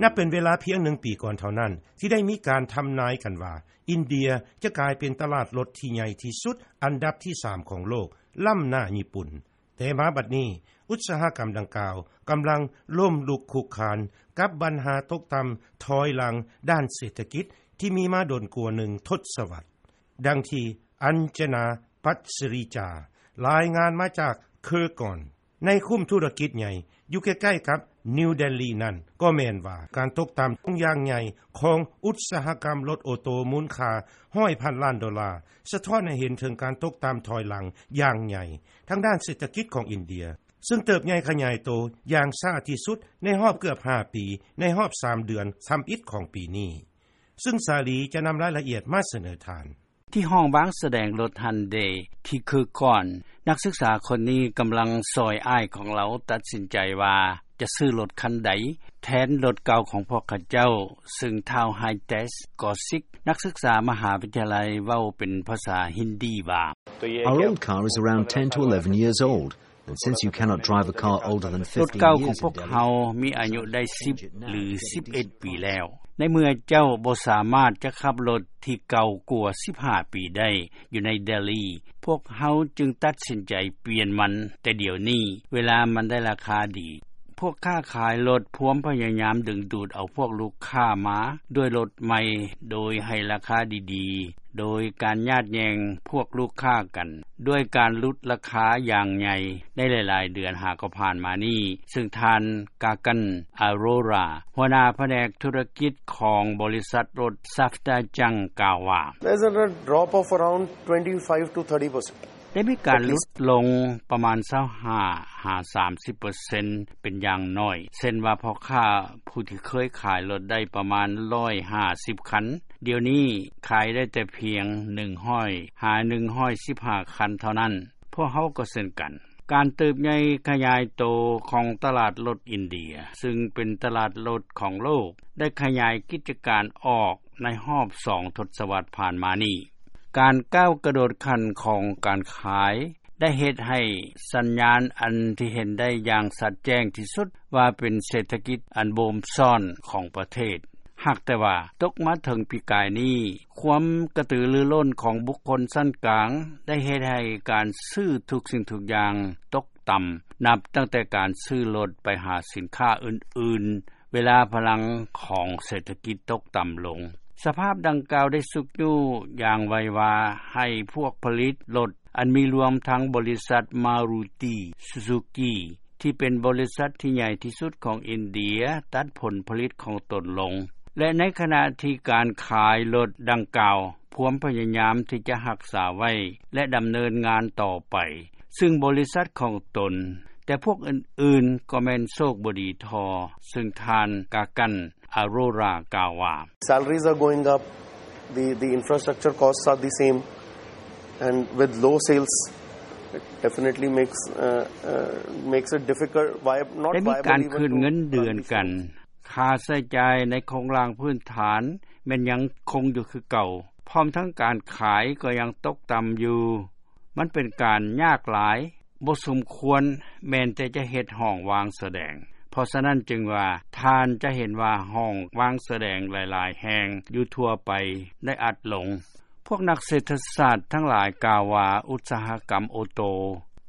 ນັບເປັນເວລາພຽງໜຶ່ງປີກ່ອນເທົ່ານັ້ນ ທີ່ໄດ້ມີການທຳນາຍກັນວ່າ ອິນເດຍຈະກາຍເປັນຕະຫຼາດລົດທີ່ໃຫຍ່ທີ່ສຸດ ອັນດັບທີສາມຂອງໂລກ ລ້ຳໜ້າຍີ່ປຸ່ນ. ແຕ່ມາບັດນີ້ ອຸດສາຫະກຳດັ່ງກ່າວ ກຳລັງລົ້ມລຸກຄຸກຄານ ກັບບັນຫາຕົກຕ່ຳຖອຍຫຼັງດ້ານເສດຖະກິດ ທີ່ມີມາດົນກວ່າໜຶ່ງທົດສະວັດ. ດັ່ງທີ່ ອັນຈະນາ ປັດສະຣີຈາ ລາຍງານມາຈາກເຄີກອນ ໃນຄຸ້ມທຸລະກິດໃຫຍ່ ຢູ່ໃກ້ໆກັບນິວເດລີນັ້ນ ກໍແມ່ນວ່າ ການຕົກຕ່ຳລົງຢ່າງໃຫຍ່ ຂອງອຸດສາຫະກຳລົດໂອໂຕ ມູນຄ່າຮ້ອຍພັນລ້ານໂດລາ ສະທ້ອນໃຫ້ເຫັນເຖິງການຕົກຕ່ຳຖອຍຫຼັງຢ່າງໃຫຍ່ ທາງດ້ານເສດຖະກິດຂອງອິນເດຍ ຊຶ່ງເຕີບໃຫຍ່ຂະຫຍາຍໂຕຢ່າງຊ້າທີ່ສຸດ ໃນຮອບເກືອບຫ້າປີ ໃນຮອບສາມເດືອນທຳອິດຂອງປີນີ້. ຊຶ່ງສາລີຈະນຳລາຍລະອຽດມາສະເໜີທ່ານ. ທີ່ຫ້ອງວາງສະແດງລົດ Hyundai ທີ່ເຄີກອນ ນັກສຶກສາຄົນນີ້ກຳລັງຊ່ອຍອ້າຍຂອງລາວຕັດສິນໃຈວ່າ ຈະຊື້ລົດຄັນໃດ ແທນລົດເກົ່າຂອງພວກເຂົາເຈົ້າ, ຊຶ່ງທ້າວ Hitesh Kaushik ນັກສຶກສາມະຫາວິທະຍາໄລ ເວົ້າເປັນພາສາຮິນດີວ່າ: Our old car is around ten to eleven years old, and since you cannot drive a car older than fifteen years in Delhi, ລົດເກົ່າຂອງພວກເຮົາມີອາຍຸໄດ້ສິບ ຫຼື ສິບເອັດປີແລ້ວ. ໃນເມື່ອເຈົ້າບໍ່ສາມາດຈະຂັບລົດທີ່ເກົ່າກວ່າສິບຫ້າປີໄດ້ຢູ່ໃນເດລີ, ພວກເຮົາຈຶ່ງຕັດສິນໃຈປ່ຽນມັນແຕ່ດຽວນີ້, ເວລາມັນໄດ້ລາຄາດີ. ພວກຄ້າຂາຍລົດພວມພະຍາຍາມດຶງດູດເອົາພວກລູກຄ້າມາດ້ວຍລົດໃໝ່ ໂດຍໃຫ້ລາຄາດີໆ, ໂດຍການຍາດແຍ່ງພວກລູກຄ້າກັນ ດ້ວຍການຫຼຸດລາຄາຢ່າງໃຫຍ່ໃນຫຼາຍໆເດືອນຫາກໍຜ່ານມານີ້, ຊຶ່ງທ່ານ Gagan Arora ຫົວໜ້າພະແນກທຸລະກິດຂອງບໍລິສັດລົດ Safdarjung ກ່າວວ່າ: There's a drop of around twenty-five to thirty percent. ໄດ້ມີການຫຼຸດລົງປະມານຊາວຫ້າຫາສາມສິບເປີເຊັນເປັນຢ່າງໜ້ອຍ, ເຊັ່ນວ່າ ພໍ່ຄ້າຜູ້ທີ່ເຄີຍຂາຍລົດໄດ້ປະມານຮ້ອຍຫ້າສິບຄັນ, ດຽວນີ້ຂາຍໄດ້ແຕ່ພຽງໜຶ່ງຮ້ອຍຫາໜຶ່ງຮ້ອຍສິບຫ້າຄັນເທົ່ານັ້ນ. ພວກເຮົາກໍເຊັ່ນກັນ. ການເຕີບໃຫຍ່ຂະຫຍາຍໂຕຂອງຕະຫຼາດລົດອິນເດຍ, ຊຶ່ງເປັນຕະຫຼາດລົດຂອງໂລກ, ໄດ້ຂະຫຍາຍກິດຈະການອອກໃນຮອບສອງທົດສະວັດຜ່ານມານີ້. ການກ້າວກະໂດດຂັ້ນຂອງການຂາຍ ໄດ້ເຮັດໃຫ້ສັນຍານອັນທີ່ເຫັນໄດ້ຢ່າງຊັດແຈ້ງທີ່ສຸດວ່າເປັນເສດຖະກິດອັນໂບມຊ້ອນຂອງປະເທດ. ຫາກແຕ່ວ່າຕົກມາເຖິງປີກາຍນີ້, ຄວາມກະຕືລືລົ້ນຂອງບຸກຄົນຊັ້ນກາງໄດ້ເຮັດໃຫ້ການຊື້ທຸກສິ່ງທຸກຢ່າງຕົກຕ່ຳ, ນັບຕັ້ງແຕ່ການຊື້ລົດໄປຫາສິນຄ້າອື່ນໆ, ເວລາພະລັງຂອງເສດຖະກິດຕົກຕ່ຳລົງ. ສະພາບດັ່ງກ່າວໄດ້ຊຸກຍູ້ຢ່າງໄວວາໃຫ້ພວກຜະລິດລົດ ອັນມີລວມທັງບໍລິສັດ Maruti Suzuki ທີ່ເປັນບໍລິສັດທີ່ໃຫຍ່ທີ່ສຸດຂອງອິນເດຍ ຕັດຜົນຜະລິດຂອງຕົນລົງ ແລະ ໃນຂະນະທີ່ການຂາຍລົດດັ່ງກ່າວພວມພະຍາຍາມທີ່ຈະຮັກສາໄວ້ ແລະ ດຳເນີນງານຕໍ່ໄປ, ຊຶ່ງບໍລິສັດຂອງຕົນ, ແຕ່ພວກອື່ນໆກໍແມ່ນໂຊກບໍ່ດີທໍ່, ຊຶ່ງທ່ານ Gagan Arora ກ່າວວ່າ: Salaries are going up, the, the infrastructure costs are the same, and with low sales, it definitely makes, uh, uh, makes it difficult, vi-, not viable even to run these things. ໄດ້ມີການຂຶ້ນເງິນເດືອນກັນ, ຄ່າໃຊ້ຈ່າຍໃນໂຄງລ່າງພື້ນຖານແມ່ນຍັງຄົງຢູ່ຄືເກົ່າ, ພ້ອມທັງການຂາຍກໍຍັງຕົກຕ່ຳຢູ່. ມັນເປັນການຍາກຫຼາຍ, ບໍ່ສົມຄວນແມ່ນແຕ່ຈະເຮັດຫ້ອງວາງສະແດງ. ເພາະສະນັ້ນຈຶ່ງວ່າ ທ່ານຈະເຫັນວ່າຫ້ອງວາງສະແດງຫຼາຍໆແຫ່ງຢູ່ທົ່ວໄປໄດ້ອັດລົງ. ພວກນັກເສດຖະສາດທັງຫຼາຍກ່າວວ່າ ອຸດສາຫະກຳໂອໂຕ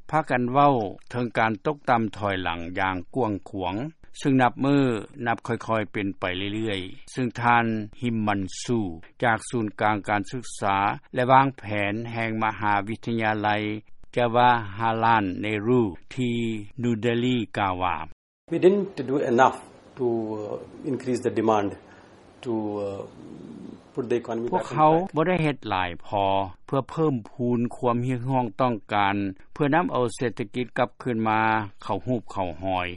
ພາກັນເວົ້າເຖິງການຕົກຕ່ຳຖອຍຫຼັງຢ່າງກວ້າງຂວາງ, ຊຶ່ງນັບມື້ນັບຄ່ອຍໆເປັນໄປເລື້ອຍໆ, ຊຶ່ງທ່ານ Himanshu ຈາກສູນກາງການສຶກສາ ແລະ ວາງແຜນແຫ່ງມະຫາວິທະຍາໄລ Jawaharlal Nehru ທີ່ New Delhi ກ່າວວ່າ: We didn't do enough to, uh, increase the demand to, uh, put the economy back on track. ພວກເຮົາບໍ່ໄດ້ເຮັດຫຼາຍພໍເພື່ອເພີ່ມພູນຄວາມຮຽກຮ້ອງຕ້ອງການ ເພື່ອນຳເອົາເສດຖະກິດກັບຄືນມາເຂົ້າຮູບເຂົ້າຮອຍ.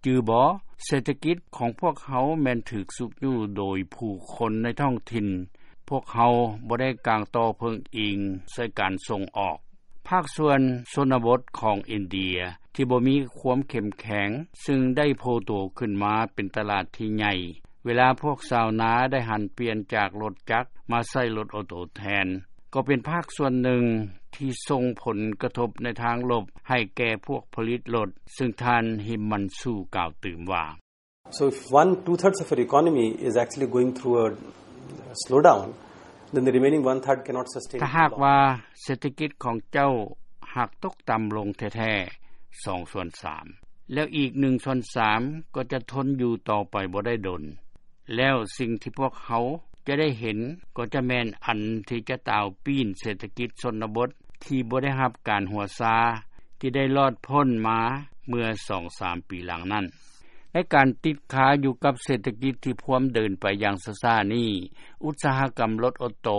ຈື່ບໍ່? ເສດຖະກິດຂອງພວກເຮົາແມ່ນຖືກຊຸກຍູ້ໂດຍຜູ້ຄົນໃນທ້ອງຖິ່ນ. ພວກເຮົາບໍ່ໄດ້ກາງຕໍ່ເພິ່ງອີງໃສ່ການສົ່ງອອກ. ພາກສ່ວນຊົນນະບົດຂອງອິນເດຍທີ່ບໍ່ມີຄວາມເຂັ້ມແຂງ, ຊຶ່ງໄດ້ໂຜ່ໂຕຂຶ້ນມາເປັນຕະຫຼາດທີ່ໃຫຍ່, ເວລາພວກຊາວນາໄດ້ຫັນປ່ຽນຈາກລົດຈັກມາໃຊ້ລົດໂອໂຕແທນ, ກໍເປັນພາກສ່ວນໜຶ່ງທີ່ສົ່ງຜົນກະທົບໃນທາງລົບໃຫ້ແກ່ພວກຜະລິດລົດ, ຊຶ່ງທ່ານ Himanshu ກ່າວຕື່ມວ່າ: So if one two thirds of your economy is actually going through a slowdown, then the remaining one third cannot sustain. ຖ້າຫາກວ່າເສດຖະກິດຂອງເຈົ້າຫາກຕົກຕໍ່າລົງແທ້ໆສອງສ່ວນສາມ ແລ້ວອີກໜຶ່ງສ່ວນສາມກໍຈະທົນຢູ່ຕໍ່ໄປບໍ່ໄດ້ດົນ ແລ້ວສິ່ງທີ່ພວກເຮົາຈະໄດ້ເຫັນກໍຈະແມ່ນອັນທີ່ຈະຕາວປີ້ນເສດຖະກິດຊົນນະບົດທີ່ບໍ່ໄດ້ຮັບການຫົວຊາ ທີ່ໄດ້ລອດພົ້ນມາເມື່ອສອງສາມປີຫຼັງນັ້ນ. ໃນການຕິດຄາຢູ່ກັບເສດຖະກິດທີ່ພວມເດີນໄປຢ່າງຊ້າໆນີ້, ອຸດສາຫະກຳລົດໂອໂຕ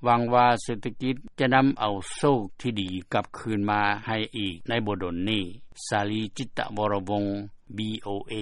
ຫວັງວ່າເສດຖະກິດຈະນຳເອົາໂຊກທີ່ດີກັບຄືນມາໃຫ້ອີກໃນບໍ່ດົນນີ້. ສາລີ ຈິດຕະວໍລະວົງ ວີໂອເອ.